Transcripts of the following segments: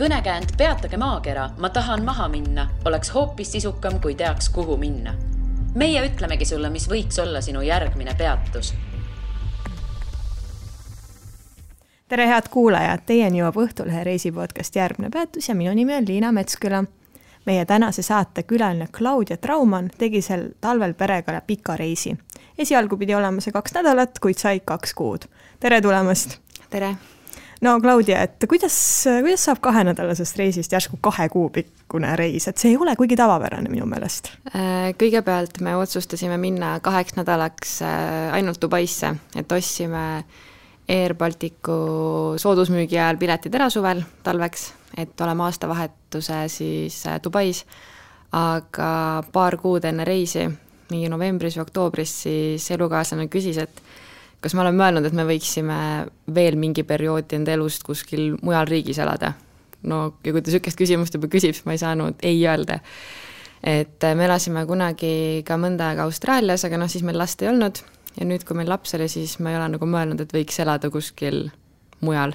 Kõnekäänd Peatage maakera, ma tahan maha minna, oleks hoopis sisukam, kui teaks, kuhu minna. Meie ütlemegi sulle, mis võiks olla sinu järgmine peatus. Tere head kuulajad, teieni jõuab Õhtulehe reisipodcast Järgmine peatus ja minu nimi on Liina Metsküla. Meie tänase saate külaline Claudia Traumann tegi sel talvel perega pika reisi. Esialgu pidi olema see 2 nädalat, kuid sai 2 kuud. Tere tulemast! Tere! No Claudia, et kuidas saab 2-nädalasest reisist järsku 2 kuu pikkune reis? Et see ei ole kuigi tavapärane minu meelest. Kõigepealt me otsustasime minna 2 nädalaks ainult Dubaisse, et ostsime Air Balticu soodusmüügi ajal piletid ära suvel talveks, et oleme aastavahetuse siis Dubais, aga 2 kuud enne reisi, mingi novembris või oktoobris, siis elukaaslane küsis, et kas ma olen mõelnud, et me võiksime veel mingi perioodi enda elust kuskil mujal riigis elada. No, ja kui ta sükest küsimust juba küsib, siis ma ei saanud ei öelda. Et me elasime kunagi ka mõnda aega Austraalias, aga siis meil last ei olnud. Ja nüüd, kui meil laps oli, siis ma ei ole nagu mõelnud, et võiks elada kuskil mujal.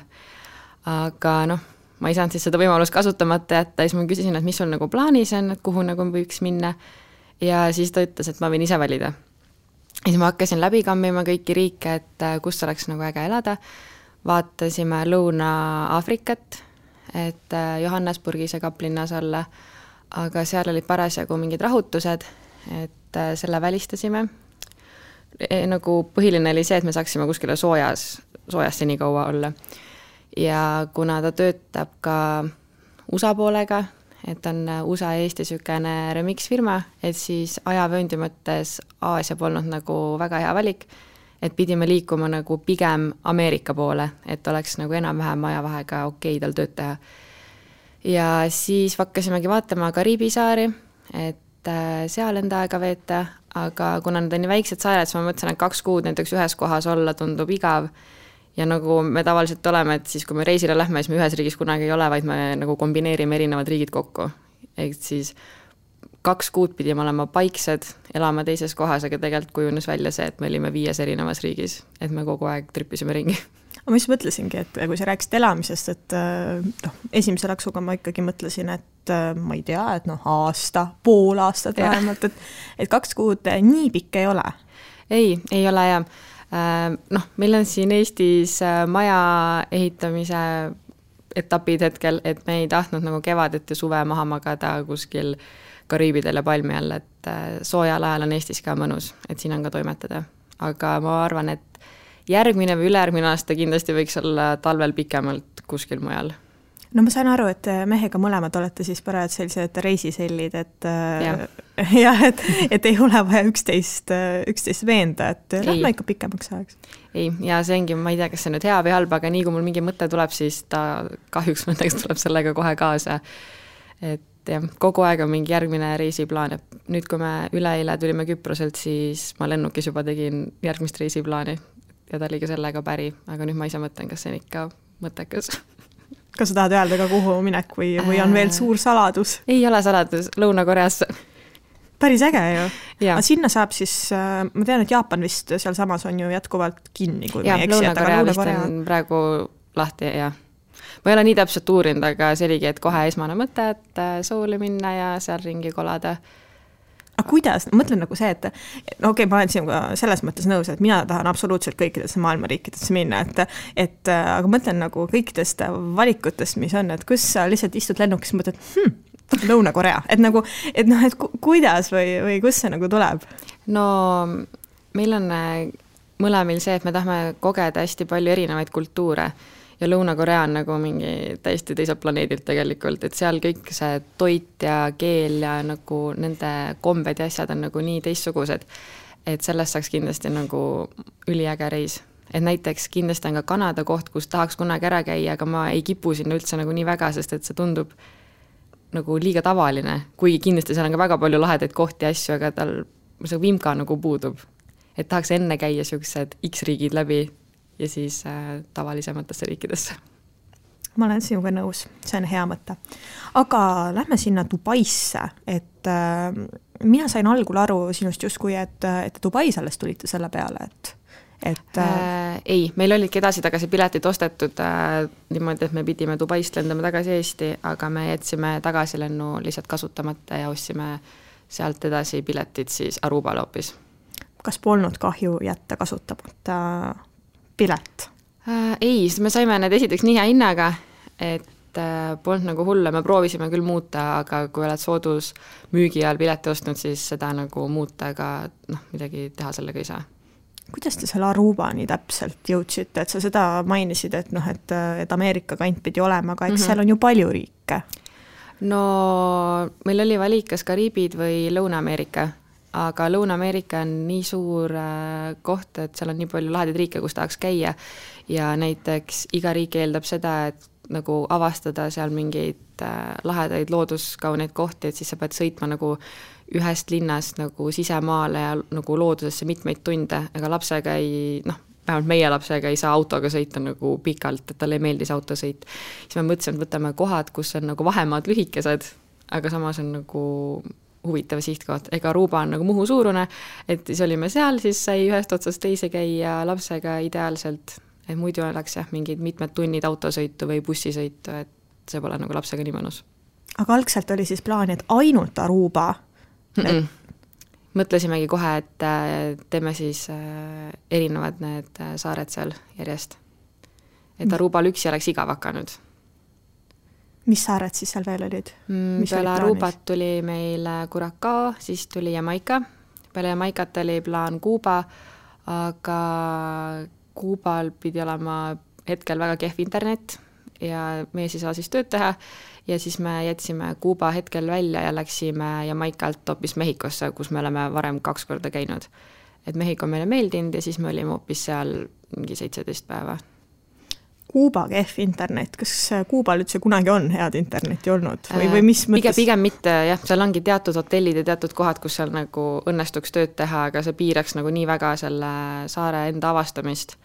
Aga ma ei saanud siis seda võimalust kasutamata jätta. Siis ma küsisin, et mis sul nagu plaanis on, et kuhu nagu võiks minna. Ja siis ta ütles, et ma võin ise valida. Ja siis ma hakkasin läbi kammima kõiki riike, et kus oleks nagu äge elada. Vaatasime Lõuna-Aafrikat, et Johannesburgis ja Kaplinnas olla, aga seal olid parasjagu mingid rahutused, et selle välistasime. Nagu põhiline oli see, et me saaksime kuskile soojas seni kaua olla. Ja kuna ta töötab ka USA poolega, et on USA ja Eesti sükene remix-firma, et siis ajavööndi mõttes Aasia polnud nagu väga hea valik, et pidime liikuma nagu pigem Ameerika poole, et oleks nagu enam-vähem ajavahega okei tal tööd teha. Ja siis hakkasimegi vaatama Kariibi saari, et seal enda aega veeta, aga kuna nad on nii väiksed saared, siis ma mõtlesin, et 2 kuud näiteks ühes kohas olla tundub igav. Ja nagu me tavaliselt oleme, et siis kui me reisile lähme, siis me ühes riigis kunagi ei ole, vaid me nagu kombineerime erinevad riigid kokku. Et siis 2 kuud pidime olema paiksed, elama teises kohas, aga tegelikult kujunes välja see, et me olime 5 erinevas riigis, et me kogu aeg tripisime ringi. Ma just mõtlesingi, et kui sa rääkisid elamisest, et esimese laksuga ma ikkagi mõtlesin, et ma ei tea, et aasta, pool aastat vähemalt, et 2 kuud nii pikk ei ole. Ei ole ja meil on siin Eestis maja ehitamise etapid hetkel, et me ei tahtnud nagu kevadet ja suve maha magada kuskil Kariibidel ja palmi all, et soojal ajal on Eestis ka mõnus, et siin on ka toimetada. Aga ma arvan, et järgmine või ülejärgmine aasta kindlasti võiks olla talvel pikemalt kuskil mujal. No ma sain aru, et mehega mõlemad olete siis parajad sellised reisisellid, et et ei ole vaja üksteist veenda, et lähme ikka pikemaks ajaks. Ei, ja see ongi, ma ei tea, kas see nüüd hea või halb, aga nii kui mul mingi mõte tuleb, siis ta kahjuks mõtteks tuleb sellega kohe kaasa. Et jah, kogu aeg on mingi järgmine reisiplaan. Nüüd, kui me üleeile tulime Küproselt, siis ma lennukis juba tegin järgmist reisiplaani ja ta oli ka sellega päri, aga nüüd ma ise mõtlen, kas see on ikka mõttekas. Kas sa tahad öelda ka kuhu minek või on veel suur saladus? Ei ole saladus, Lõuna-Koreasse. Päris äge ju. Aga sinna saab siis, ma tean, et Jaapan vist seal samas on ju jätkuvalt kinni. Ja, Lõuna-Korea vist on praegu lahti ja ma ei ole nii täpselt uurinud, aga see oligi, et kohe esmane mõte, et sooli minna ja seal ringi kolada. Aga kuidas? Mõtlen nagu see, et ma olen sinuga selles mõttes nõus, et mina tahan absoluutselt kõikidesse maailma riikidesse minna, aga mõtlen nagu kõikidest valikutest, mis on, et kus sa lihtsalt istud lennukis, mõtled, Lõuna-Korea, et kuidas või kus see nagu tuleb? No meil on mõlemil see, et me tahame kogeda hästi palju erinevaid kultuure ja Lõuna-Korea on nagu mingi täiesti teiselt planeedilt tegelikult, et seal kõik see toit ja keel ja nagu nende kombed ja asjad on nagu nii teistsugused, et sellest saaks kindlasti nagu üliäge reis. Et näiteks kindlasti on ka Kanada koht, kus tahaks kunagi ära käia, aga ma ei kipu sinna üldse nagu nii väga, sest et see tundub nagu liiga tavaline, kuigi kindlasti seal on ka väga palju lahedaid kohti ja asju, aga tal see vimka nagu puudub. Et tahaks enne käia sellised X-riigid läbi ja siis tavalisematesse riikidesse. Ma olen sinuga nõus, see on hea mõte. Aga lähme sinna Dubaisse, et mina sain algul aru sinust justkui, et Dubais alles tulite selle peale, et ei, meil olidki edasi-tagasi piletid ostetud niimoodi, et me pidime Dubaist lendama tagasi Eesti, aga me jätsime tagasilennu lihtsalt kasutamata ja ostsime sealt edasi piletid siis Arubale hoopis. kas polnud kahju jätta kasutamata pilet? Ei, me saime need esiteks nii hea hinnaga, et polnud nagu hulle, me proovisime küll muuta, aga kui oled soodus müügi ajal pileti ostnud, siis seda nagu muuta, aga midagi teha sellega ei saa. Kuidas te selle Arubani täpselt jõudsite, et sa seda mainisid, et et Ameerika kant pidi olema, aga eks seal on ju palju riike? No meil oli valik kas Kariibid või Lõuna-Ameerika, aga Lõuna-Ameerika on nii suur koht, et seal on nii palju lahedaid riike, kus tahaks käia ja näiteks iga riik eeldab seda, et nagu avastada seal mingeid lahedaid looduskauneid kohti, et siis sa pead sõitma nagu ühest linnast nagu sisemaale ja nagu loodusesse mitmeid tunde, aga lapsega ei, vähemalt meie lapsega ei saa autoga sõita nagu pikalt, et talle ei meeldi see autosõit. Siis me mõtlesime, et võtame kohad, kus on nagu vahemaad lühikesed, aga samas on nagu huvitav sihtkoht. Ega Aruba on nagu Muhu suurune, et siis olime seal, siis sai ühest otsast teise käia lapsega ideaalselt, et muidu oleks mingid mitmed tunnid autosõitu või bussisõitu, et see pole nagu lapsega nii mõnus. Aga algselt oli siis plaan, et ainult Aruba? Mõtlesimegi kohe, et teeme siis erinevad need saared seal järjest. Et Arubal üksi oleks igav hakanud. Mis saared siis seal veel olid? Peale Arubat tuli meil Curacao, siis tuli Jamaica. Peale Jamaicat oli plaan Kuuba, aga Kuubal pidi olema hetkel väga kehv internet ja meie ei saa siis tööd teha ja siis me jätsime Kuuba hetkel välja ja läksime Jamaicalt hoopis Mehhikosse, kus me oleme varem 2 korda käinud. Et Mehhiko meile meeldinud ja siis me olime hoopis seal mingi 17 päeva. Kuuba kehv internet, kas Kuubal üldse kunagi on head interneti olnud? Või mis mõttes? Pigem mitte, jah, seal ongi teatud hotellid ja teatud kohad, kus seal nagu õnnestuks tööd teha, aga see piiraks nagu nii väga selle saare enda avastamist,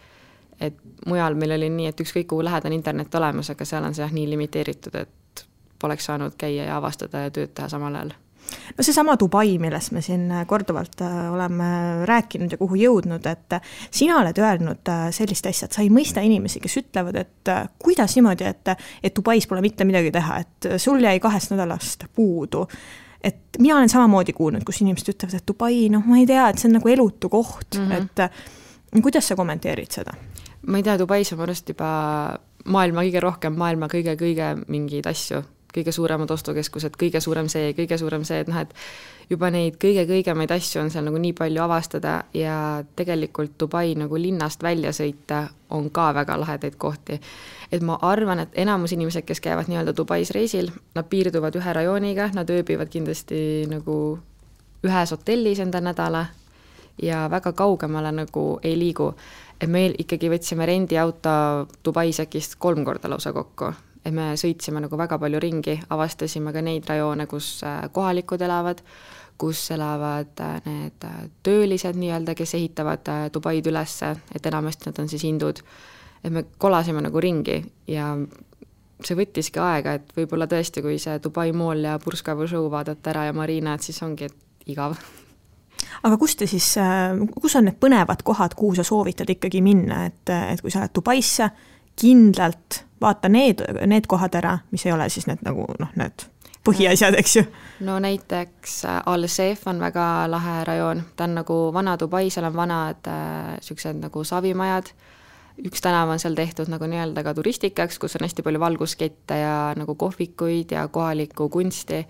et mujal meil oli nii, et ükskõik kuhu lähedane internet olemas, aga seal on see nii limiteeritud, et poleks saanud käia ja avastada ja tööd teha samal ajal. No see sama Dubai, millest me siin korduvalt oleme rääkinud ja kuhu jõudnud, et sina oled öelnud sellist asja, et sa ei mõista inimesi, kes ütlevad, et kuidas niimoodi, et Dubais pole mitte midagi teha, et sul jäi 2 nädalast puudu. Et mina olen samamoodi kuulnud, kus inimesed ütlevad, et Dubai, ma ei tea, et see on nagu elutu koht, et kuidas sa kommenteerid seda? Ma ei tea, Dubais on mõnust juba maailma kõige rohkem, maailma kõige mingeid asju, kõige suuremad ostukeskused, kõige suurem see, et juba neid kõige-kõigemaid asju on seal nagu nii palju avastada ja tegelikult Dubai nagu linnast välja sõita on ka väga lahedaid kohti. Et ma arvan, et enamus inimesed, kes käivad nii-öelda Dubais reisil, nad piirduvad ühe rajooniga, nad ööbivad kindlasti nagu ühes hotellis enda nädala ja väga kaugemale nagu ei liigu. Et meil ikkagi võtsime rendiauto Dubais äkist 3 korda lausa kokku. Et me sõitsime nagu väga palju ringi, avastasime ka neid rajoone, kus kohalikud elavad, kus elavad need töölised nii-öelda, kes ehitavad Dubaid ülesse, et enamasti nad on siis hindud. Et me kolasime nagu ringi ja see võttiski aega, et võib-olla tõesti, kui see Dubai Mall ja Burj Khalifa vaadata ära ja Marina, et siis ongi igav. Aga kus on need põnevad kohad, kuhu sa soovitad ikkagi minna, et kui sa oled Dubaisse, kindlalt vaata need kohad ära, mis ei ole siis need nagu need põhiasjad, eks ju? No näiteks Al-Seef on väga lahe rajoon, ta on nagu vana Dubai, seal on vanad sellised nagu savimajad, üks tänav on seal tehtud nagu nii-öelda ka turistikaks, kus on hästi palju valguskette ja nagu kohvikuid ja kohalikku kunsti,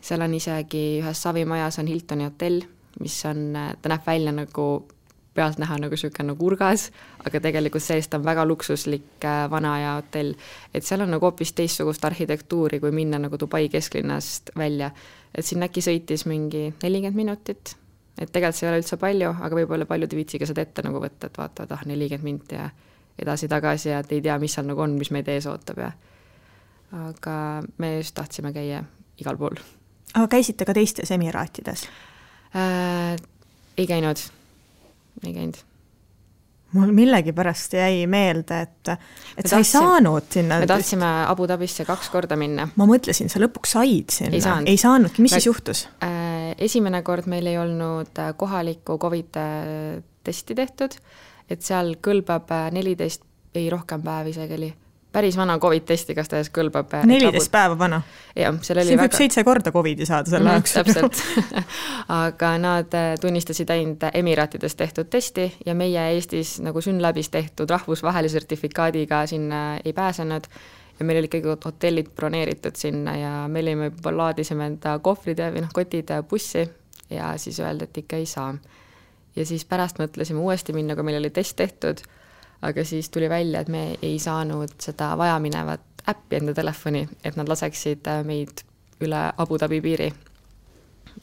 seal on isegi ühes savimajas on Hiltoni hotell, mis on, ta näeb välja nagu pealt näha nagu selline nagu urgas, aga tegelikult seest on väga luksuslik vana ja hotell, et seal on nagu hoopis teistsugust arhitektuuri, kui minna nagu Dubai kesklinnast välja, et siin äkki sõitis mingi 40 minutit, et tegelikult see ei ole üldse palju, aga võib-olla paljud viitsiga seda ette nagu võtta, et vaatavad 40 minutit ja edasi-tagasi ja et ei tea, mis seal nagu on, mis meid ees ootab ja aga me just tahtsime käia igal pool. Aga käisite ka teistes Emiraatides? Ei käinud. Mul millegi pärast jäi meelde, et sa ei saanud sinna. Me tahtsime Abu Dhabisse 2 korda minna. Ma mõtlesin, sa lõpuks said sinna. Ei saanudki. Mis siis juhtus? Esimene kord meil ei olnud kohalikku COVID-testi tehtud, et seal kõlbab 14, ei rohkem päev isegi oli, päris vana COVID-testi, kas ta ees kõlbab 14 päeva vana. Jah, siin võib 7 korda COVID-i saada selle ajaks. Täpselt. Aga nad tunnistasid ainult Emiraatides tehtud testi ja meie Eestis nagu Synlabis tehtud rahvusvahelise sertifikaadiga sinna ei pääsenud ja meil oli ikkagi hotellid broneeritud sinna ja meil olime juba laadisime enda kohvrid või kotid bussi ja siis öeldi, et ikka ei saa. Ja siis pärast mõtlesime uuesti minna, kui meil oli test tehtud, aga siis tuli välja, et me ei saanud seda vajaminevat äppi enda telefoni, et nad laseksid meid üle Abu Dhabi piiri.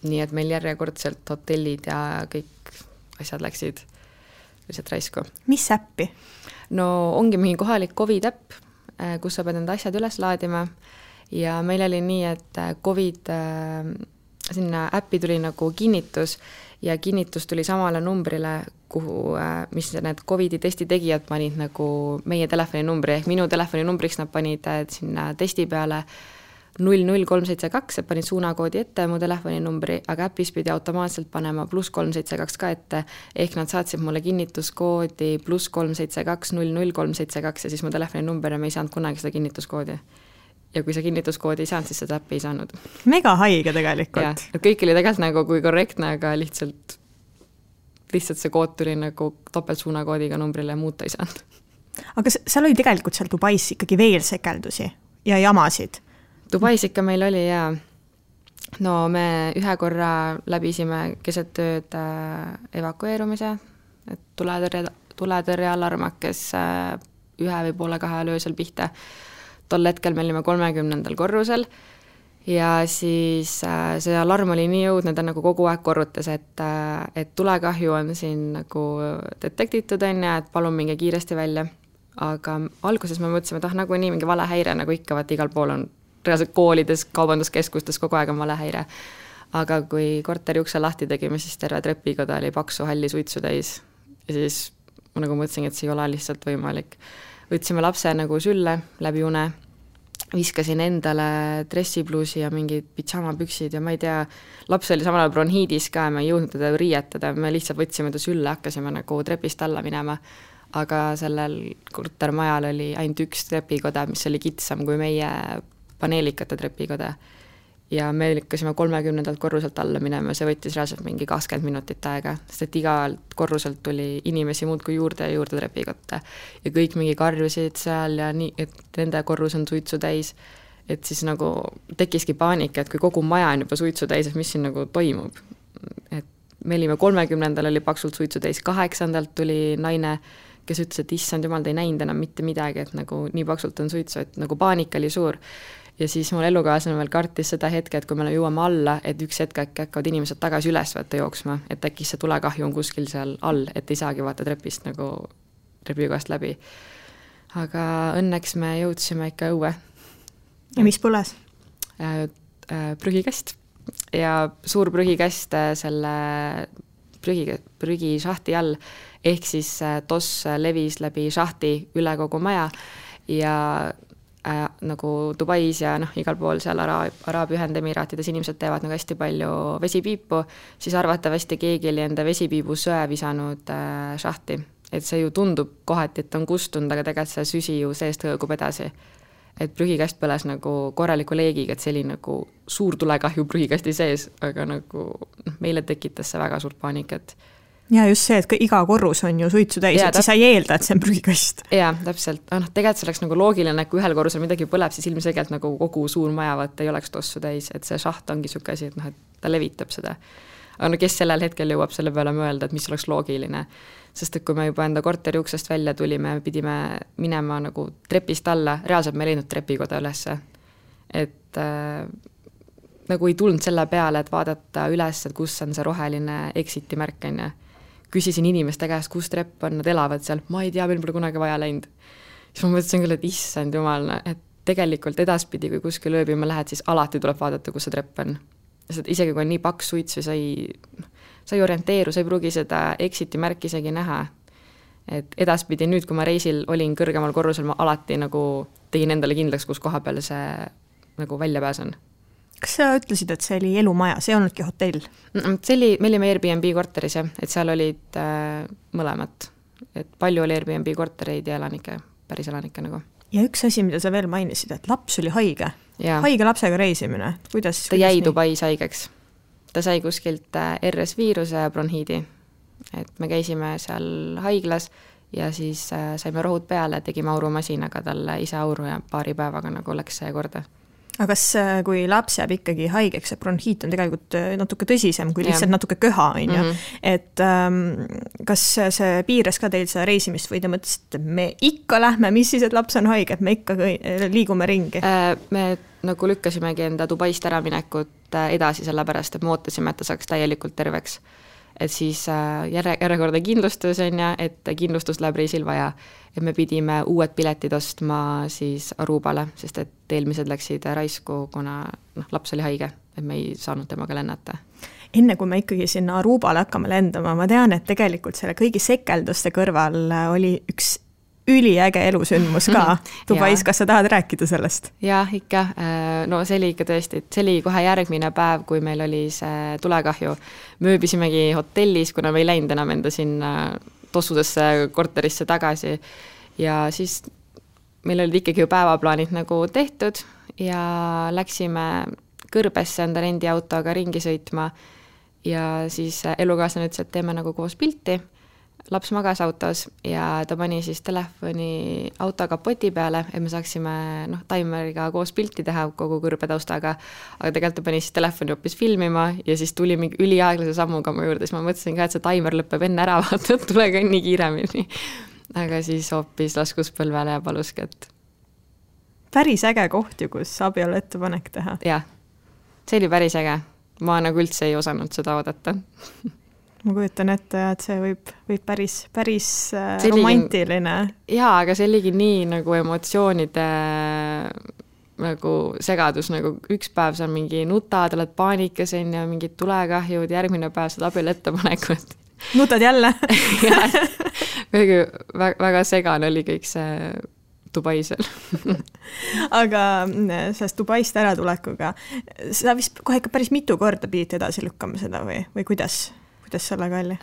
Nii et meil järjekordselt hotellid ja kõik asjad läksid lihtsalt raisku. Mis äppi? No ongi mingi kohalik COVID-äpp, kus sa pead enda asjad üles laadima ja meil oli nii, et COVID sinna äppi tuli nagu kinnitus ja kinnitus tuli samale numbrile, kuhu, mis need COVID-i testi tegijad panid nagu meie telefoni numbri, ehk minu telefoni numbriks nad panid sinna testi peale 00372, et panid suunakoodi ette mu telefoni numbri, aga äpis pidi automaatselt panema +372 ka ette, ehk nad saatsid mulle kinnituskoodi +372 00372 ja siis mu telefoni number ja me ei saanud kunagi seda kinnituskoodi. Ja kui sa kinnituskoodi ei saanud, siis seda äppi ei saanud. Mega haige tegelikult. Ja, kõik oli tegelikult nagu kui korrektne, aga lihtsalt see kood tuli nagu topeltsuunakoodiga numbrile ja muuta ei saanud. Aga seal oli tegelikult seal Dubais ikkagi veel sekeldusi ja jamasid? Dubais ikka meil oli ja no me ühe korra läbisime keset tööd evakueerumise, et tuletõrje alarm hakkes 1 või poole 2 öösel pihta. Tol hetkel me olime 30. korrusel ja siis see alarm oli nii jõudnud, ta nagu kogu aeg korrutas, et tulekahju on siin nagu detektitud enne, et palun minge kiiresti välja. Aga alguses me mõtlesime, et nagu nii mingi valehäire, nagu ikka, vaat igal pool on reaalselt koolides, kaubanduskeskustes kogu aeg on valehäire. Aga kui korteri ukse lahti tegime, siis terve trepikoda oli paksu halli suitsu täis ja siis ma nagu mõtlesin, et see ei ole lihtsalt võimalik. Võtsime lapse nagu sülle läbi une, viskasin endale dressipluusi ja mingid pidžamapüksid ja ma ei tea, laps oli samal ajal bronhiidis ka ja me ei jõudnud teda riietada, me lihtsalt võtsime ta sülle, hakkasime nagu trepist alla minema, aga sellel kortermajal oli ainult üks trepikoda, mis oli kitsam kui meie paneelikate trepikoda. Ja me lükkasime 30. korruselt alla minema, see võttis reaalselt mingi 20 minutit aega, sest et igalt korruselt tuli inimesi muudkui juurde ja juurde trepikotta ja kõik mingi karjusid seal ja nii, et nende korrus on suitsu täis, et siis nagu tekkiski paanika, et kui kogu maja on juba suitsu täis, et mis siin nagu toimub. Et me olime 30. oli paksult suitsu täis, 8. tuli naine, kes ütles, et issand jumal, te ei näinud enam mitte midagi, et nagu nii paksult on suitsu, et nagu paanika oli suur. Ja siis mul elukaaslane veel kartis seda hetke, et kui me jõuame alla, et üks hetk hakkavad inimesed tagasi üles võtta jooksma, et äkki see tulekahju on kuskil seal all, et ei saagi vaata trepist nagu trepikoast läbi. Aga õnneks me jõudsime ikka õue. Ja mis põles? Prügikast. Ja suur prügikast selle prügišahti all, ehk siis toss levis läbi šahti üle kogu maja ja nagu Dubais ja igal pool seal Araabia Ühendemiraatides inimesed teevad nagu hästi palju vesipiipu, siis arvatavasti keegi oli enda vesipiibu söe visanud šahti. Et see ju tundub kohati, et on kustunud, aga tegelikult see süsi ju seest hõõgub edasi. Et prügikast põles nagu korraliku leegiga, et see oli nagu suur tulekahju prügikasti sees, aga nagu meile tekitas see väga suurt paanikat. Ja just see, et iga korrus on ju suitsu täis, et siis sa ei eelda, et see on prügikast. Jaa, täpselt. Tegelikult see oleks nagu loogiline, et kui ühel korrusel midagi põleb, siis ilmselgelt nagu kogu suur majavad ei oleks tossu täis, et see šaht ongi süke asi, et ta levitab seda. Aga kes sellel hetkel jõuab selle peale mõelda, et mis oleks loogiline. Sest et kui me juba enda korteri uksest välja tulime, pidime minema nagu trepist alla, reaalselt me ei leidnud trepikoda ülesse. Et nagu ei tulnud selle peale, et vaadata üles, et kus on see roheline exiti märkene. Küsisin inimeste käest, kus trepp on, nad elavad seal, ma ei tea, meil pole kunagi vaja läinud. Siis ma mõtlesin küll, et issand jumal, et tegelikult edaspidi, kui kuskil ööbima lähed, siis alati tuleb vaadata, kus see trepp on. Sest isegi kui on nii paks suits või sa ei orienteeru, sa ei pruugi seda exiti märki isegi näha. Et edaspidi nüüd, kui ma reisil olin kõrgemal korrusel, ma alati nagu tegin endale kindlaks, kus koha peal see nagu välja pääsen. Kas sa ütlesid, et see oli elumaja, see ei olnudki hotell? See oli, me olime Airbnb korteris, et seal olid mõlemat. et palju oli Airbnb kortereid ja päris elanikke nagu. Ja üks asi, mida sa veel mainisid, et laps oli haige. Haige lapsega reisimine. Ta jäi Dubais haigeks. Ta sai kuskilt RS-viiruse ja bronhiidi. Et me käisime seal haiglas ja siis saime rohud peale, tegime aurumasinaga talle ise auru ja paari päevaga nagu läks see korda. Aga kas, kui laps jääb ikkagi haigeks, et bronhiit on tegelikult natuke tõsisem kui lihtsalt natuke köha, on ju. Et kas see piires ka teil seda reisimist või te mõtlesite, et me ikka lähme, mis siis, et laps on haige, et me ikka liigume ringi? Me nagu lükkasimegi enda Dubaist ära minekut edasi sellepärast, et me ootasime, et ta saaks täielikult terveks. Et siis järjekordne kindlustus on ja, et kindlustus läheb reisil vaja. Et me pidime uued piletid ostma siis Arubale, sest et eelmised läksid raisku, kuna laps oli haige, et me ei saanud temaga lennata. Enne kui me ikkagi sinna Arubale hakkame lendama, ma tean, et tegelikult selle kõigi sekelduste kõrval oli üks üliäge elusündmus ka Dubais, kas sa tahad rääkida sellest? Jah, ikka. No see oli ikka tõesti, see oli kohe järgmine päev, kui meil oli see tulekahju. Mööbisimegi hotellis, kuna me ei läinud enam enda sinna tossudesse korterisse tagasi ja siis meil olid ikkagi ju päevaplaanid nagu tehtud ja läksime Kõrbesse enda rendiautoga ringi sõitma ja siis elukaaslane ütles, et teeme nagu koos pilti. Laps magas autos ja ta pani siis telefoni auto kapoti peale, et me saaksime taimeriga koos pilti teha kogu Kõrbe taustaga, aga tegelikult ta pani siis telefoni hoopis filmima ja siis tuli mingi üliaeglase sammuga mu juurde, siis ma mõtlesin ka, et see taimer lõpeb enne ära, vaata, tule kõnni kiiremini. Aga siis hoopis laskus põlvele ja paluski, et... Päris äge koht ju, kus abielu ettepanek teha. Jah, see oli päris äge. Ma nagu üldse ei osanud seda oodata. Ma kujutan ette, et see võib päris romantiline. Jaa, aga see oligi nii nagu emotsioonide nagu segadus, nagu üks päev sa mingi nutad, oled paanikas ja mingid tulekahjud, järgmine päev saad abielu ettepanekut. Nutad jälle? väga segane oli kõik see Dubaisel. Aga sellest Dubaist ära tulekuga, sa vist kohe ikka päris mitu korda pidid edasi lükkama seda või kuidas sellega oli?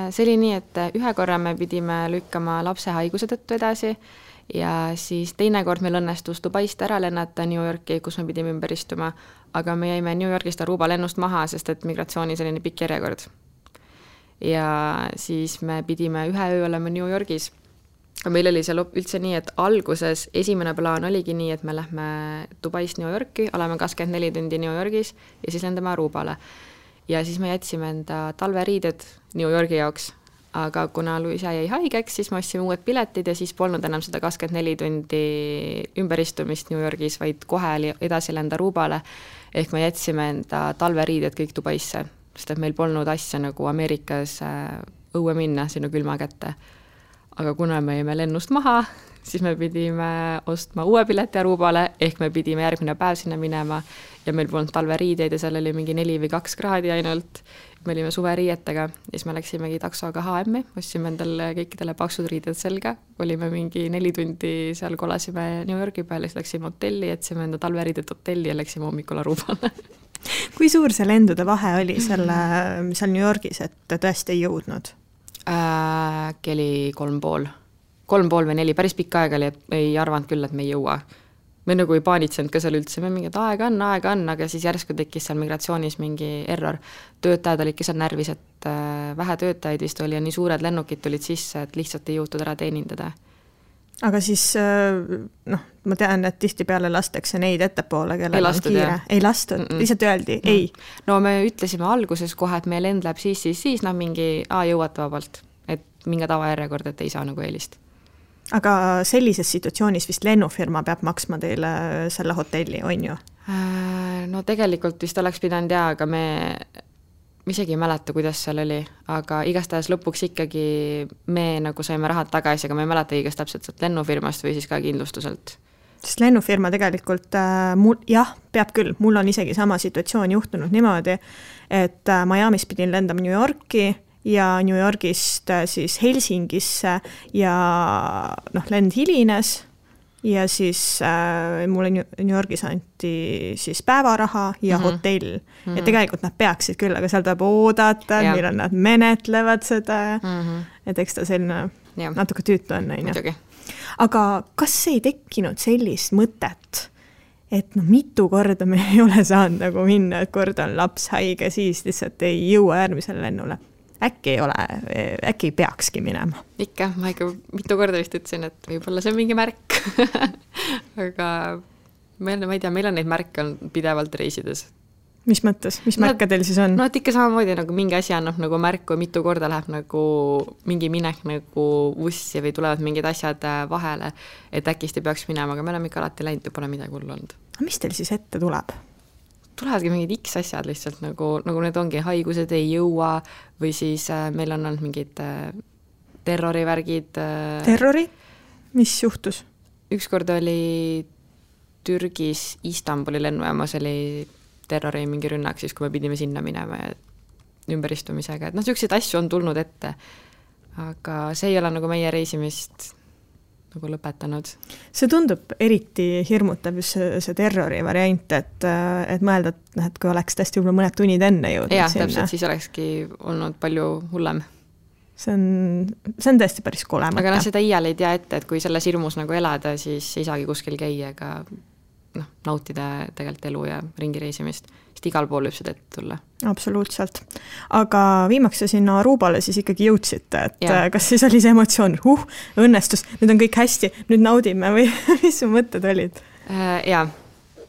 See oli nii, et ühe korra me pidime lükkama lapse haiguse tõttu edasi ja siis teine kord meil õnnestus Dubaist ära lennata New Yorki, kus me pidime ümber istuma, aga me jäime New Yorgist Aruba lennust maha, sest et migratsioonis oli nii pikk järjekord. Ja siis me pidime ühe öö olema New Yorgis. Meil oli seal üldse nii, et alguses esimene plaan oligi nii, et me lähme Dubaist New Yorki, oleme 24 tundi New Yorgis ja siis lendame Arubale. Ja siis me jätsime enda talveriided New Yorgi jaoks, aga kuna Luisa jäi haigeks, siis me ostsime uued piletid ja siis polnud enam seda 24 tundi ümberistumist New Yorgis, vaid kohe edasi lenda Arubale, ehk me jätsime enda talveriided kõik Dubaisse, sest et meil polnud asja nagu Ameerikas õue minna sinna külma kätte. Aga kuna me jäime lennust maha, siis me pidime ostma uue pileti Arubale, ehk me pidime järgmine päev sinna minema ja meil polnud talveriideid ja seal oli mingi 4 või 2 kraadi ainult. Me olime suveriietega ja siis me läksimegi taksoga H&M-i, ostsime endale kõikidele paksud riided selga, olime mingi 4 tundi seal, kolasime New Yorgi peale, siis läksime hotelli, jätsime enda talveriidet hotelli ja läksime hommikul Arubale. Kui suur see lendude vahe oli seal New Yorgis, et tõesti ei jõudnud? Keli 3,5 või 4, päris pikka aega oli, et ei arvanud küll, et me ei jõua. Me nagu ei paanitsenud ka seal üldse, me mingid aega on, aga siis järsku tekkis seal migratsioonis mingi error. Töötajad olid seal närvis, et vähe töötajaid vist oli ja nii suured lennukid tulid sisse, et lihtsalt ei jõutud ära teenindada. Aga siis, ma tean, et tihti peale lastakse neid ettepoole, kellel on kiire. Ei lastud, lihtsalt öeldi, ei. No me ütlesime alguses kohe, et meie lend läheb siis, mingi jõuate vabalt, et mingi tavajärjekord, et ei saa nagu eelist. Aga sellises situatsioonis vist lennufirma peab maksma teile selle hotelli, on ju? No tegelikult vist oleks pidanud aga me isegi ei mäleta, kuidas seal oli, aga igastahes lõpuks ikkagi me nagu saime rahad tagasi, aga me ei mäleta igast täpselt lennufirmast või siis ka kindlustuselt. Sest lennufirma tegelikult, peab küll, mul on isegi sama situatsioon juhtunud niimoodi, et Miamis pidin lendama New Yorki ja New Yorgist siis Helsingisse ja lend hilines ja siis mulle New Yorgis anti siis päevaraha ja hotell. Ja tegelikult nad peaksid küll, aga seal tuleb oodata, millal nad menetlevad seda. Et eks ta selline natuke tüütu on. Aga kas ei tekkinud sellist mõtet, et mitu korda me ei ole saanud nagu minna, et kord on laps haige, siis lihtsalt ei jõua järgmisele lennule? Äkki ei peakski minema? Ikka, ma ikka mitu korda vist ütlesin, et võib-olla see on mingi märk. Aga ma ei tea, meil on neid märke on pidevalt reisides. Mis mõttes? Mis märke teil siis on? No, et ikka samamoodi nagu mingi asi annab nagu märku, mitu korda läheb nagu mingi minek nagu ussi või tulevad mingid asjad vahele, et äkki peaks minema, aga me oleme ikka alati läinud ja pole midagi hullu olnud. Mis teil siis ette tuleb? Tulevadki mingid X asjad lihtsalt, nagu need ongi haigused ei jõua või siis meil on olnud mingid terrorivärgid. Terrori? Mis juhtus? Ükskord oli Türgis Istanbuli lennujaamas oli terrori mingi rünnak, siis kui me pidime sinna minema ja ümberistumisega. Et selliseid asju on tulnud ette, aga see ei ole nagu meie reisimist nagu lõpetanud. See tundub eriti hirmutav see terrori variant, et mõelda, et kui oleks tõesti võib-olla mõned tunnid enne jõudnud sinna. Jah, täpselt, siis olekski olnud palju hullem. See on tõesti päris kole mõte. Aga seda iial ei tea ette, et kui selles hirmus nagu elada, siis ei saagi kuskil käia ega nautida tegelikult elu ja ringireisimist. Sest igal pool võib seda ette tulla. Absoluutselt. Aga viimaks sinna Arubale siis ikkagi jõudsite, et kas siis oli see emotsioon, õnnestus, nüüd on kõik hästi, nüüd naudime või mis su mõtted olid? Jaa,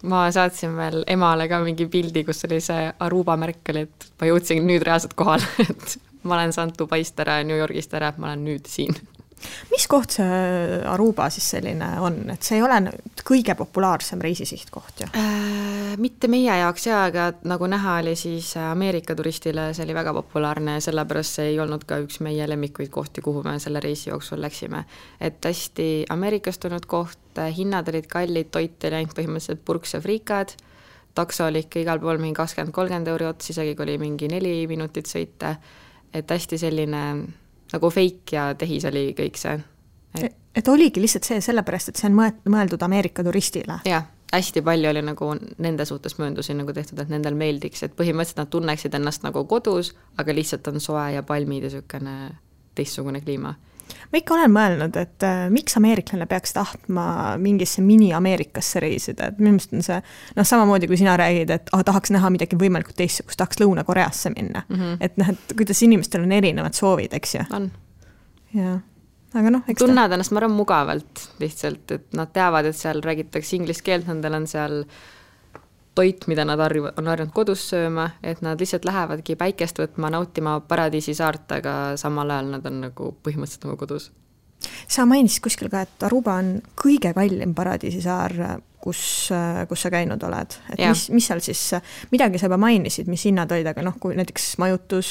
ma saatsin veel emale ka mingi pildi, kus oli see Aruba märk oli, et ma jõudsin nüüd reaalselt kohal, et ma olen saanud Dubaist ära ja New Yorgist ära, et ma olen nüüd siin. Mis koht see Aruba siis selline on? Et see ei ole kõige populaarsem reisisihtkoht, ju? Mitte meie jaoks, aga nagu näha oli siis Ameerika turistile, see oli väga populaarne ja sellepärast see ei olnud ka üks meie lemmikuid kohti, kuhu me selle reisi jooksul läksime. Et hästi Ameerikastunud koht, hinnad olid kallid, toit oli ainult põhimõtteliselt purks ja friikad, takso oli ikka igal pool mingi 20-30 euri ots, isegi kui oli mingi 4 minutit sõita, et hästi selline nagu fake ja tehis oli kõik see. Et oligi lihtsalt see sellepärast, et see on mõeldud Ameerika turistile. Jah, hästi palju oli nagu nende suhtes mööndusi nagu tehtud, et nendel meeldiks, et põhimõtteliselt nad tunneksid ennast nagu kodus, aga lihtsalt on soe ja palmid ja sükene teistsugune kliima. Ma ikka olen mõelnud, et miks ameeriklane peaks tahtma mingisse mini-Ameerikasse reisida, et minu meelest on see samamoodi, kui sina räägid, et tahaks näha midagi võimalikult teistsugust, tahaks Lõuna-Koreasse minna. Et kuidas inimestel on erinevad soovid, eks ju? On. Ja. Aga tunned ennast, ma arvan, mugavalt lihtsalt, et nad teavad, et seal räägitakse inglise keelt, nendel on seal toit, mida nad on harjunud kodus sööma, et nad lihtsalt lähevadki päikest võtma, nautima paradiisi saart, aga samal ajal nad on nagu põhimõtteliselt nagu kodus. Sa mainisid kuskil ka, et Aruba on kõige kallim paradiisi saar, kus sa käinud oled. Et mis seal siis, midagi sa juba mainisid, mis hinnad olid, aga kui näiteks majutus,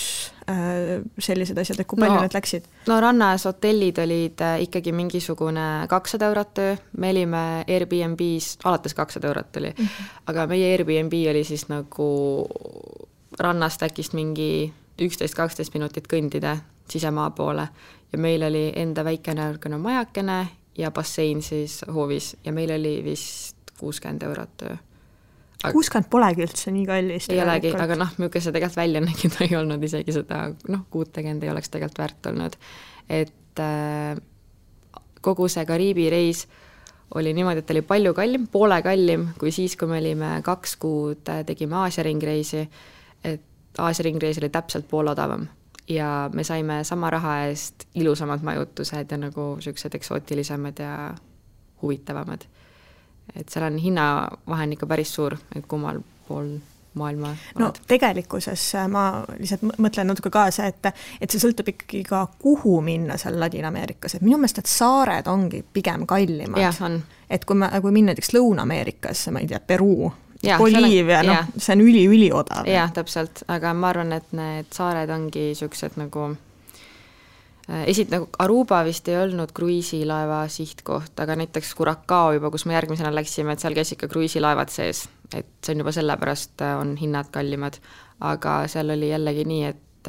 sellised asjad, et kui palju need läksid? No rannas hotellid olid ikkagi mingisugune 200 eurot öö, me olime Airbnb's, alates 200 eurot oli, aga meie Airbnb oli siis nagu rannast äkist mingi 11-12 minutit kõndida sisemaa poole ja meil oli enda väikene majakene ja bassein siis hoovis ja meil oli vist 60 eurot öö. 60 polegi üldse nii kallis. Ei olegi, aga milline see tegelikult välja nägid ei olnud isegi seda, kuud tegend ei oleks tegelikult väärt olnud. Et kogu see Kariibi reis oli niimoodi, et oli palju kallim, poole kallim kui siis, kui me olime 2 kuud, tegime Aasia ringreisi, et Aasia ringreis oli täpselt pool odavam ja me saime sama raha eest ilusamad majutused ja nagu sellised eksootilisemad ja huvitavamad. Et seal on hinnavahen ikka päris suur, et kummal pool maailma oled. Tegelikkuses ma lihtsalt mõtlen natuke kaasa, et see sõltub ikkagi ka kuhu minna seal Ladina-Ameerikas, et minu meelest, et saared ongi pigem kallimad. Jah, on. Et kui minna näiteks Lõuna-Ameerikas, ma ei tea, Peruu, Boliivia, see on üli odav. Jah, täpselt, aga ma arvan, et need saared ongi sellised nagu Aruba vist ei olnud kruiisilaeva sihtkoht, aga näiteks Curacao juba, kus me järgmisena läksime, et seal käis ikka kruiisilaevad sees, et see on juba sellepärast on hinnad kallimad, aga seal oli jällegi nii, et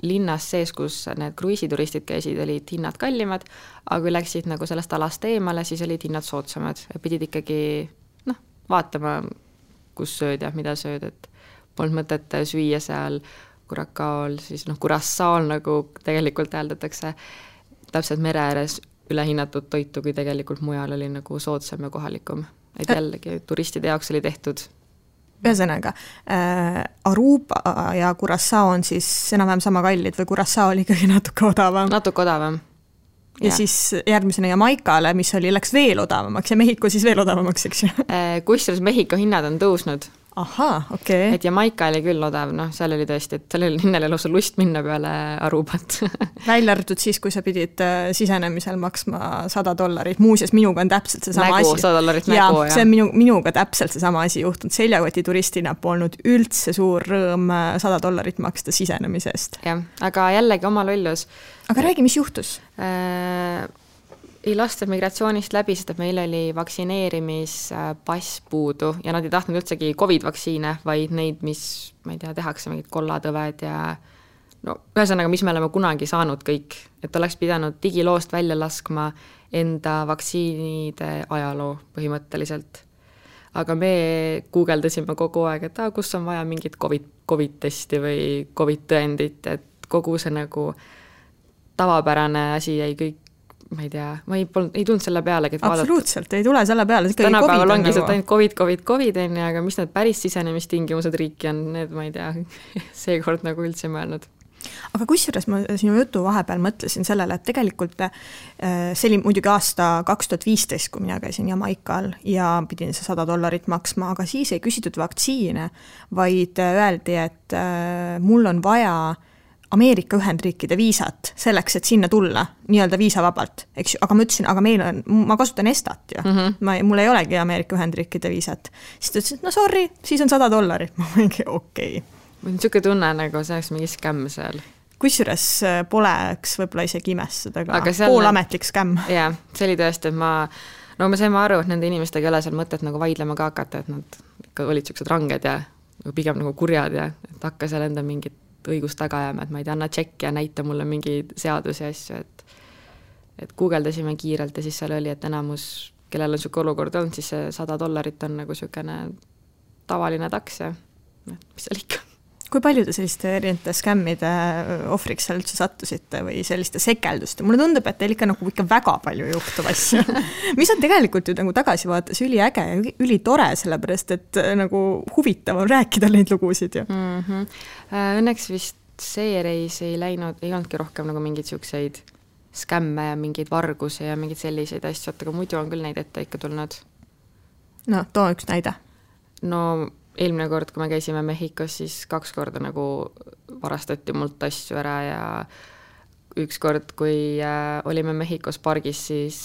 linnas sees, kus need kruiisituristid käisid, olid hinnad kallimad, aga kui läksid nagu sellest alast eemale, siis olid hinnad soodsamad ja pidid ikkagi vaatama, kus sööd ja mida sööd, et polnud mõtet süüa seal Curaçaol, siis Curaçaol nagu tegelikult hääldatakse täpselt mere ääres ülehinnatud toitu, kui tegelikult mujal oli nagu soodsam ja kohalikum. Et jällegi turistide jaoks oli tehtud. Ühesõnaga, Aruba ja Curaçao on siis enam-vähem sama kallid või Curaçao oli ikkagi natuke odavam? Natuke odavam. Ja siis järgmisena Jamaikale, mis läks veel odavamaks ja Mehhiko siis veel odavamaks, eks ju? Kusjuures Mehhiko hinnad on tõusnud. Ahaa, okei. Et Jamaika oli küll odav, seal oli tõesti, et seal oli linnale lausa lust minna peale Arubat. Välja arvatud siis, kui sa pidid sisenemisel maksma $100. Muuseas, minuga on täpselt see sama nägu, asi. $100 nägu, ja see on minuga täpselt see sama asi juhtunud. Seljakoti turistina polnud üldse suur rõõm $100 maksta sisenemisest. Jah, aga jällegi oma lollus. Aga räägi, mis juhtus? Ei lasta migratsioonist läbi, sest et meil oli vaktsineerimispass puudu ja nad ei tahtnud üldsegi COVID-vaktsiine, vaid neid, mis, ma ei tea, tehakse mingid kollatõved ja ühesõnaga, mis me oleme kunagi saanud kõik, et oleks pidanud digiloost välja laskma enda vaktsiinide ajaloo põhimõtteliselt. Aga me guugeldasime kogu aeg, et kus on vaja mingit COVID-testi või COVID-tõendit, et kogu see nagu tavapärane asi jäi kõik, ma ei tea, ma ei tulnud selle peale, et absoluutselt, ei tule selle peale. Tänapäeval ongi see ainult COVID, aga mis need päris sisenemistingimused riiki on, need ma ei tea, seekord nagu üldse mõelnud. Aga kusjuures ma sinu jutu vahepeal mõtlesin sellele, et tegelikult see oli muidugi aasta 2015, kui mina käisin Jamaikal ja pidin see $100 maksma, aga siis ei küsitud vaktsiine, vaid öeldi, et mul on vaja Ameerika Ühendriikide viisat selleks, et sinna tulla, nii-öelda viisavabalt, eks ju, aga ma ütlesin, aga ma kasutan Estat ju, mul ei olegi Ameerika Ühendriikide viisat. Siis ta ütles, et sorry, siis on $100. Ma mingi okei. Mul on niisugune tunne, nagu see oleks mingi skämm seal. Kusjuures poleks võib-olla isegi imestada, aga poolametlik skämm. Jaa, see oli tõesti, et me saime aru, et nende inimestega ei ole seal mõtet nagu vaidlema ka hakata, et nad ikka olid niisugused ranged ja pigem nagu kurjad ja et hakka seal enda mingit õigust taga jääma, et ma ei tea, anna tšekki ja näita mulle mingi seadusi ja asju, et guugeldasime kiirelt ja siis seal oli, et enamus, kellel on niisugune olukord olnud, siis see $100 on nagu niisugune tavaline taks ja mis seal ikka. Kui palju te selliste erinevate skämmide ohvriks seal üldse sattusite või selliste sekelduste? Mulle tundub, et teil ikka väga palju juhtub asju. Mis on tegelikult ju nagu tagasi vaates üliäge ja ülitore, sellepärast, et nagu huvitav on rääkida neid lugusid ju. Õnneks vist see reis ei olnudki rohkem nagu mingid siukseid skämme ja mingeid vargusi ja mingeid selliseid asju, aga muidu on küll neid ette ikka tulnud. No, too üks näide. No, eelmine kord, kui me käisime Mehhikos, siis 2 korda nagu varastati mult asju ära ja üks kord, kui olime Mehhikos pargis, siis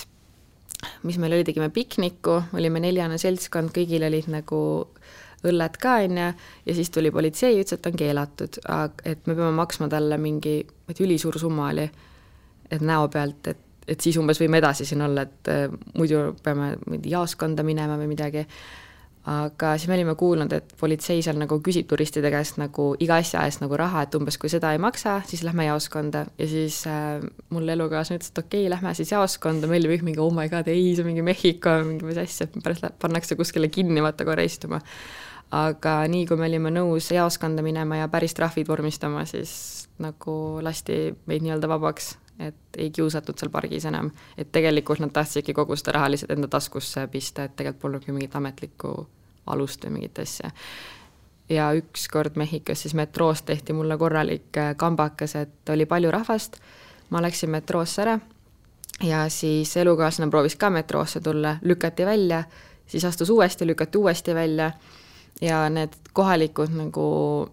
mis meil oli, tegime pikniku, olime 4 seltskond, kõigil olid nagu õlled ka ja siis tuli politsei ja ütles, et on keelatud, et me peame maksma talle mingi ülisuur summa oli, et näo pealt, et siis umbes võime edasi siin olla, et muidu peame jaoskonda minema või midagi. Aga siis me olime kuulnud, et politsei seal nagu küsib turistide käest nagu iga asja eest nagu raha, et umbes kui seda ei maksa, siis lähme jaoskonda ja siis mul elukaaslane ütles, et okei, lähme siis jaoskonda, meil oli mingi oh my god, ei, see mingi Mehhiko, mingi mis asja, pärast pannakse kuskile kinni, vaata korra istuma. Aga nii, kui me olime nõus jaoskonda minema ja päris trahvid vormistama, siis nagu lasti meid nii-öelda vabaks, et ei kiusatud seal pargis enam, et tegelikult nad tahtsidki kogu seda raha lihtsalt enda taskusse pista, et tegelikult polnudki mingit ametlikku alust või mingit asja. Ja üks kord Mehhikos siis metroost tehti mulle korralik kambakas, et oli palju rahvast, ma läksin metroosse ära ja siis elukaaslane proovis ka metroosse tulla, lükati välja, siis astus uuesti, lükati uuesti välja ja need kohalikud nagu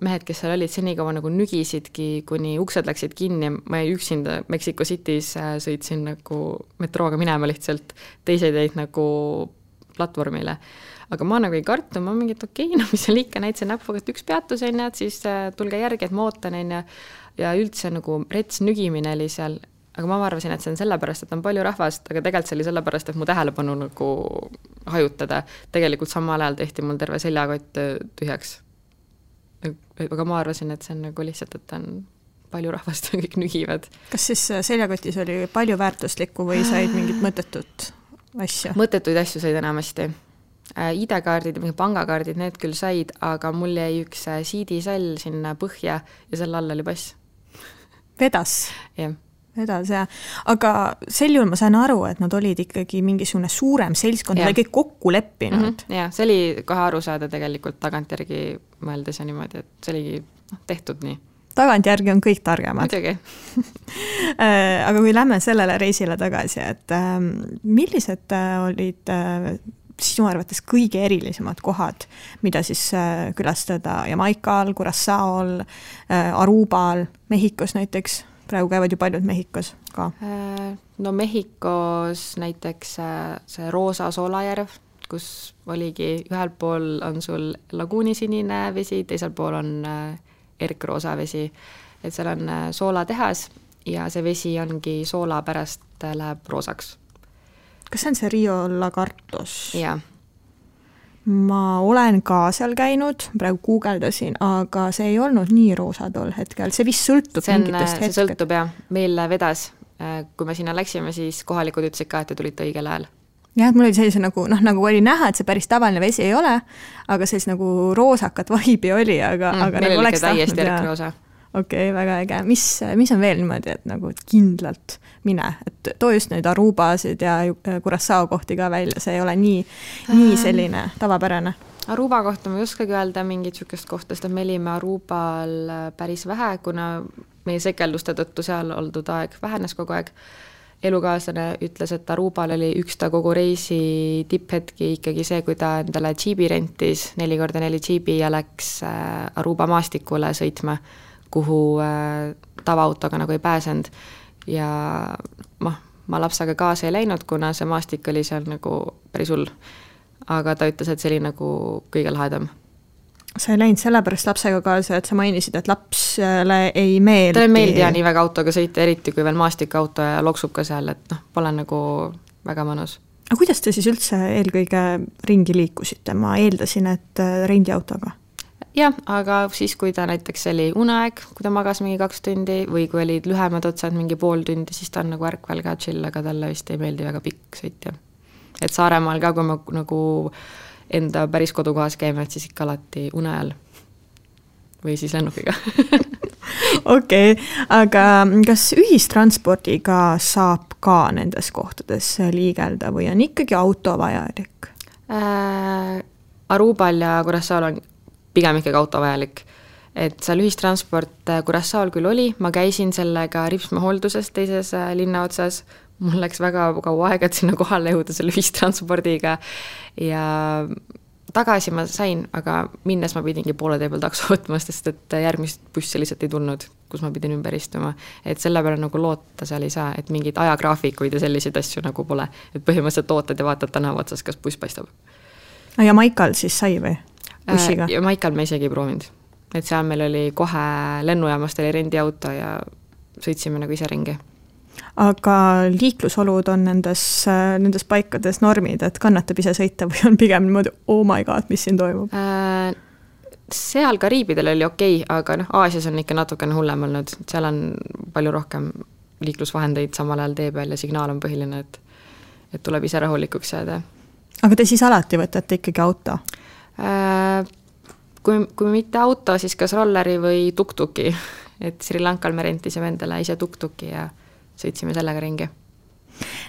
mehed, kes seal olid, senikaua nagu nügisidki, kuni uksed läksid kinni, ma üksinda Mexico City's sõitsin nagu metrooga minema lihtsalt, teised jäid nagu platvormile. Aga ma nagu ei kartu, ma mingit okei, mis seal ikka näitasin näpuga, et üks peatus on ja siis tulge järgi, et ma ootan ja üldse nagu rets nügimine oli seal, aga ma arvasin, et see on sellepärast, et on palju rahvast, aga tegelikult see oli sellepärast, et mu tähelepanu nagu hajutada. Tegelikult samal ajal tehti mul terve seljakott tühjaks. Aga ma arvasin, et see on nagu lihtsalt, et on palju rahvast kõik nügivad. Kas siis seljakotis oli palju väärtuslikku või said mingit mõttetut asju? Mõttetuid asju said enamasti. ID-kaardid ja mingi pangakaardid, need küll said, aga mul jäi üks CD-sall sinna põhja ja selle all oli pass. Vedas? Jah. Vedas, jah. Aga sel juhul ma sain aru, et nad olid ikkagi mingisugune suurem seltskond, nad olid kõik kokku leppinud. Ja, see oli kohe aru saada tegelikult tagantjärgi mõeldes ja niimoodi, et see oligi tehtud nii. Tagantjärgi on kõik targemad. Muidugi. Aga kui lähme sellele reisile tagasi, et millised olid sinu arvates kõige erilisemad kohad, mida siis külastada Jamaikal, Curaçaol, Arubal, Mehhikos näiteks? Praegu käivad ju paljud Mehhikos ka. No Mehhikos näiteks see Roosa soolajärv, kus oligi ühel pool on sul laguunisinine vesi, teisel pool on erkroosa vesi, et seal on soolatehas ja see vesi ongi soola pärast läheb roosaks. Kas see on see Rio Lagartos? Jaa. Ma olen ka seal käinud, praegu guugeldasin, aga see ei olnud nii roosa tol hetkel, see vist sõltub mingitest hetked. See sõltub jah, meil vedas, kui me sinna läksime, siis kohalikud ütlesid ka, et te tulite õigel ajal. Jah, et mul oli sellise nagu oli näha, et see päris tavaline vesi ei ole, aga sellise nagu roosakat vaibi oli, aga meil nagu oli täiesti erkroosa. Okei, väga äge. Mis on veel niimoodi, et nagu kindlalt mine, et too just neid Arubasid ja Curaçao kohti ka välja, see ei ole nii selline tavapärane. Aruba kohta ma ei oskagi öelda mingit sükest kohta, sest me olime Arubal päris vähe, kuna meie sekelduste tõttu seal oldud aeg vähenes kogu aeg. Elukaaslane ütles, et Arubal oli üks ta kogu reisi tipphetki ikkagi see, kui ta endale džiibi rentis 4x4 džiibi ja läks Aruba maastikule sõitma, kuhu tavaautoga nagu ei pääsend. Ja ma lapsaga kaasa ei läinud, kuna see maastik oli seal nagu päris hull. Aga ta ütles, et see oli nagu kõige lahedam. Sa ei läinud sellepärast lapsega kaasa, et sa mainisid, et lapsele ei meeldi. Ta ei meeldi ja nii väga autoga sõita, eriti kui veel maastikauto ja loksub ka seal, et pole nagu väga mõnus. Aga kuidas te siis üldse eelkõige ringi liikusite? Ma eeldasin, et rendiautoga. Jah, aga siis, kui ta näiteks oli uneaeg, kui ta magas mingi 2 tundi või kui olid lühemad otsad mingi pool tundi, siis ta on nagu ärkvel ka chill, aga talle vist ei meeldi väga pikk sõitja. Et Saaremaal ka, kui ma nagu enda päris kodukohas käime, et siis ikka alati une ajal või siis lennukiga. Okei, aga kas ühistranspordiga saab ka nendes kohtades liigelda või on ikkagi auto vajalik? Arubal ja Curaçaol on pigem ikkagi auto vajalik. Et seal ühistransport Curaçaol küll oli, ma käisin sellega Ripsma hoolduses teises linna otsas, mul läks väga kaua aega, et sinna kohale jõuda selle ühistranspordiga ja tagasi ma sain, aga minnes ma pidingi poole tee peal takso võtma, sest et järgmist bussi lihtsalt ei tulnud, kus ma pidin ümber istuma. Et selle peale nagu loota seal ei saa, et mingid ajagraafikuid ja selliseid asju nagu pole. Et põhimõtteliselt ootad ja vaatad tänava otsas, kas buss paistab. Ja Maikal siis sai või? Bussiga? Ja Maikal me isegi ei proovinud. Et seal meil oli kohe lennujaamast oli rendiauto ja sõitsime nagu ise ringi. Aga liiklusolud on nendes paikades normid, et kannatab ise sõita või on pigem niimoodi, oh my god, mis siin toimub? Seal Kariibidel oli okei, aga Aasias on ikka natukene hullem olnud. Seal on palju rohkem liiklusvahendeid samal ajal tee peal ja signaal on põhiline, et tuleb ise rahulikuks jääda. Aga te siis alati võtate ikkagi auto? Kui mitte auto, siis kas rolleri või tuktuki. Et Sri Lankal me rentisime endale ise tuktuki ja sõitsime sellega ringi.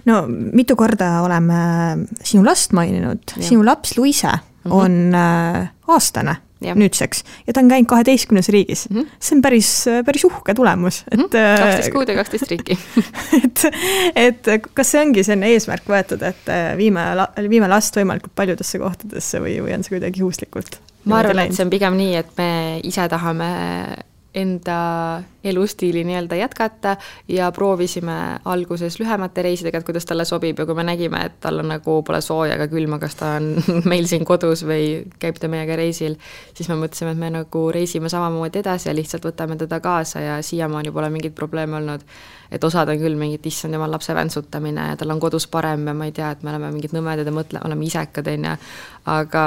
No mitu korda oleme sinu last maininud. Ja. Sinu laps Luise on aastane nüüdseks ja ta on käinud 12 riigis. See on päris uhke tulemus. Et, 12 kuud ja 12 riiki. et kas see ongi selline eesmärk võetud, et viime last võimalikult paljudesse kohtadesse või on see kuidagi juhuslikult? Ma arvan, et see on pigem nii, et me ise tahame enda elustiili nii-öelda jätkata ja proovisime alguses lühemate reisidega, et kuidas talle sobib ja kui me nägime, et tal on nagu pole sooja ega külma, kas ta on meil siin kodus või käib ta meiega reisil, siis me mõtlesime, et me nagu reisime samamoodi edasi ja lihtsalt võtame teda kaasa ja siiamaani pole mingit probleeme olnud. Et osad on küll mingit issand jumal lapse väntsutamine ja tal on kodus parem ja ma ei tea, et me oleme mingid nõmedad ja oleme isekad, aga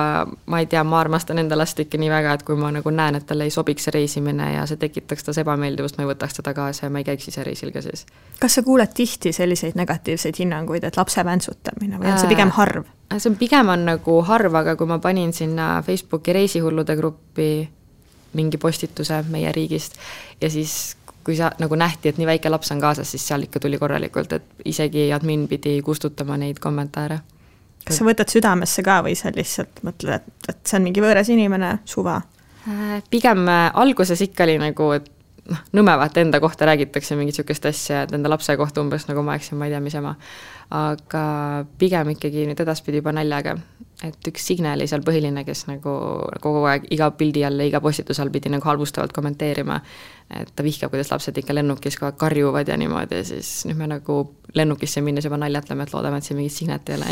ma ei tea, ma armastan enda last ikka nii väga, et kui ma nagu näen, et talle ei sobiks see reisimine ja see tekitaks tas ebameeldivust, ma ei võtaks teda kaasa ja ma ei käiks ise reisil ka siis. Kas sa kuuled tihti selliseid negatiivseid hinnanguid, et lapse väntsutamine või on see pigem harv? See pigem on nagu harv, aga kui ma panin sinna Facebooki reisihullude gruppi mingi postituse meie riigist ja siis kui sa nagu nähti, et nii väike laps on kaasas, siis seal ikka tuli korralikult, et isegi admin pidi kustutama neid kommentaare. Kas sa võtad südamesse ka või sa lihtsalt mõtled, et see on mingi võõras inimene, suva? Pigem alguses ikka oli nagu, et nõmevat enda kohta räägitakse mingit sükest asja, et enda lapse kohta umbes nagu ma eksin, ma ei tea, mis ema. Aga pigem ikkagi nüüd edaspidi juba naljaga. Et üks Signe oli seal põhiline, kes nagu kogu aeg iga pildi all ja iga postitus all pidi nagu halvustavalt kommenteerima. Et ta vihkab, kuidas lapsed ikka lennukis kogu aeg karjuvad ja niimoodi ja siis nüüd me nagu lennukisse minnes juba naljatleme, et loodame, et siin mingit Signet ei ole.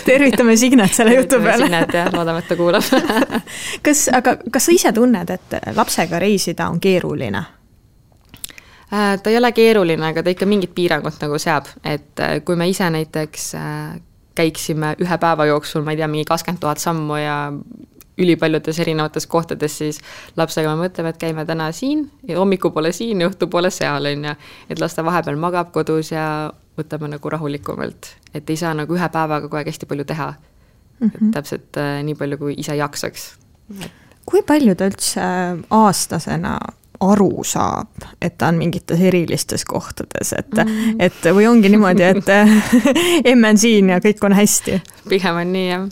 Tervitame Signet selle jutu peale. Signet ja loodame, et ta kuulab. Kas sa ise tunned, et lapsega reisida on keeruline? Ta ei ole keeruline, aga ta ikka mingit piirangut nagu seab, et kui me ise näiteks käiksime ühe päeva jooksul, ma ei tea, mingi 20 000 sammu ja ülipaljudes erinevates kohtades, siis lapsega me mõtleme, et käime täna siin ja hommiku poole siin ja õhtu poole seal, et lasta vahepeal magab kodus ja võtame nagu rahulikumalt, et ei saa nagu ühe päevaga kogu aeg hästi palju teha, et täpselt nii palju, kui ise jaksaks. Kui palju ta üldse aastasena aru saab, et ta on mingites erilistes kohtades, et või ongi niimoodi, et emme on siin ja kõik on hästi? Pigem on nii, jah.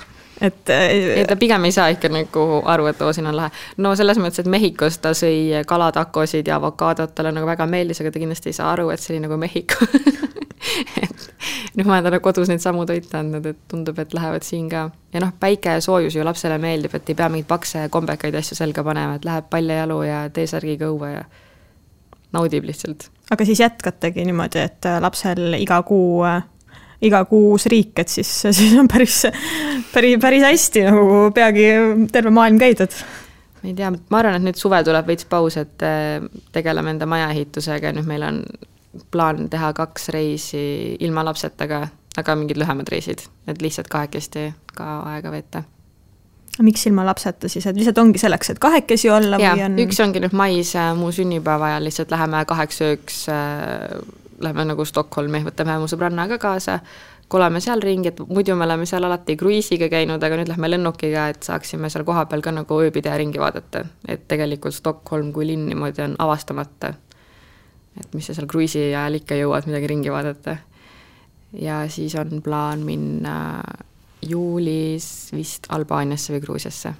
Ta pigem ei saa ikka nagu aru, et siin on lahe. No selles mõttes, et Mehhikos ta sõi kalatakosid ja avokaadot, talle nagu väga meeldis, aga ta kindlasti ei saa aru, et see oli nagu Mehhiko. Nüüd ma olen talle kodus neid samu toite andnud, et tundub, et lähevad siin ka. Ja päike ja soojus ju lapsele meeldib, et ei pea mingid pakse kombekaid asju selga panema, et läheb paljajalu ja T-särgiga õue ja naudib lihtsalt. Aga siis jätkategi niimoodi, et lapsel iga kuu uus riik, et siis on päris hästi, nagu peagi terve maailm käidud. Ma ei tea, ma arvan, et nüüd suve tuleb veits paus, et tegeleme enda majaehitusega, nüüd meil on plaan teha 2 reisi ilma lapsetaga, aga mingid lühemad reisid, et lihtsalt kahekesti ka aega veeta. Miks ilma lapseta siis, et lihtsalt ongi selleks, et kahekesi olla? Ja, või on... üks ongi nüüd mais muu sünnipäeva ja lihtsalt läheme 8 ööks, läheme nagu Stockholmi, võtame mu sõbrannaga kaasa, koleme seal ringi, et muidu me oleme seal alati kruiisiga käinud, aga nüüd lähme lennukiga, et saaksime seal koha peal ka nagu ööbida ringi vaadata, et tegelikult Stockholm kui linn niimoodi on avastamata. Et mis seal kruiisi ajal ikka jõuad midagi ringi vaadata. Ja siis on plaan minna juulis vist Albaaniasse või Gruusiasse.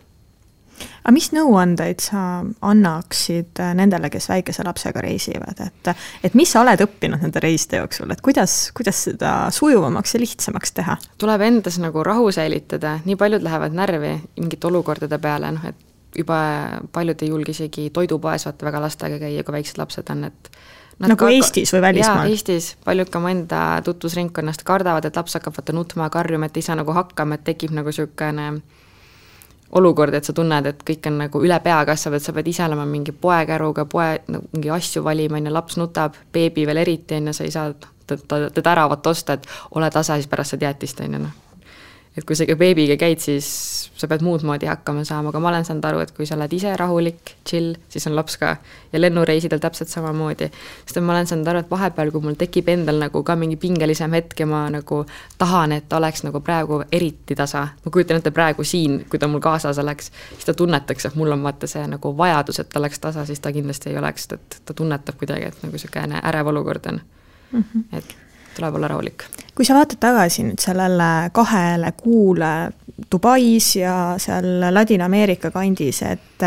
Aga mis nõuandeid sa annaksid nendele, kes väikese lapsega reisivad? Et mis sa oled õppinud nende reiside jooksul? Et kuidas seda sujuvamaks ja lihtsamaks teha? Tuleb endas nagu rahu säilitada. Nii paljud lähevad närvi mingite olukordade peale, et juba paljud ei julge isegi toidupoes vaata väga lastega käia, kui väiksed lapsed on, et nagu Eestis või välismaal? Jaa, Eestis. Paljud ka mu enda tutvusringkonnast kardavad, et laps hakkab vaata nutma ja karjuma, et ei saa nagu hakkama, et tekib nagu sükene olukord, et sa tunned, et kõik on nagu üle pea kasvab, et sa pead ise olema mingi poekäruga, mingi asju valima, laps nutab, beebi veel eriti, sa ei saa teda äravat osta, et ole tasa, siis pärast sa teatist. Et kui sa beebiga käid, siis sa pead muud moodi hakkama saama, aga ma olen saanud aru, et kui sa oled ise rahulik, chill, siis on laps ka ja lennureisidel täpselt samamoodi. Sest ma olen saanud aru, et vahepeal, kui mul tekib endal nagu ka mingi pingelisem hetk ja ma nagu tahan, et ta oleks nagu praegu eriti tasa. Ma kujutan ette praegu siin, kui ta mul kaasas oleks, siis ta tunnetaks, et mul on vaata see nagu vajadus, et ta oleks tasa, siis ta kindlasti ei oleks, et ta tunnetab kuidagi, et nagu selline ärev olukord on. Et tuleb olla rahulik. Kui sa vaatad tagasi nüüd sellele 2 kuule Dubais ja seal Ladina-Ameerika kandis, et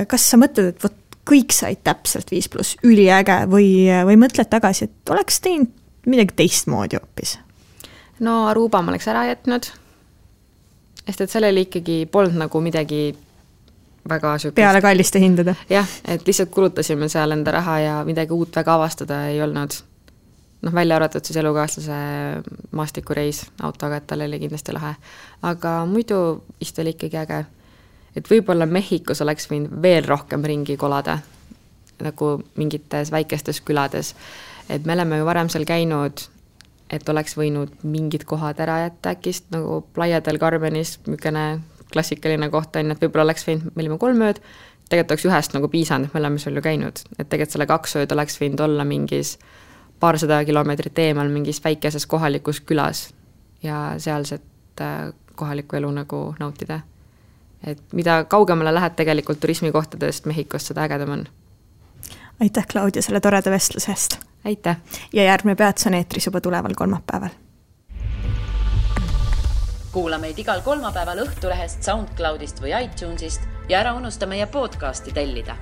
kas sa mõtled, et kõik said täpselt 5+, üliäge või mõtled tagasi, et oleks teinud midagi teistmoodi hoopis? No Aruba ma oleks ära jätnud, sest et sellele ikkagi polnud nagu midagi väga sükust. Peale kalliste hindade. Jah, et lihtsalt kulutasime seal enda raha ja midagi uut väga avastada ei olnud. Välja arvatud siis elukaaslase maastikureis autoga, et tal oli kindlasti lahe. Aga muidu vist oli ikkagi äge. Et võib-olla Mehhikos oleks võinud veel rohkem ringi kolada, nagu mingites väikestes külades. Et me oleme ju varem seal käinud, et oleks võinud mingid kohad ära jätta äkist, nagu Playa del Carmenis, mükene klassikaline koht on, et võib-olla oleks võinud, me olime 3 ööd, tegelikult oleks ühest nagu piisanud, me oleme seal ju käinud, et tegelikult selle 2 ööd oleks võinud olla mingis paarsada kilomeetrit eemal mingis väikeses kohalikus külas ja sealset kohalikku elu nagu nautida. Et mida kaugemale lähed tegelikult turismikohtadest Mehhikost, seda ägedam on. Aitäh, Claudia, selle toreda vestluse eest. Aitäh! Ja järgmine peatus on eetris juba tuleval kolmapäeval. Kuula meid igal kolmapäeval Õhtulehest, SoundCloudist või iTunesist ja ära unusta meie podcasti tellida.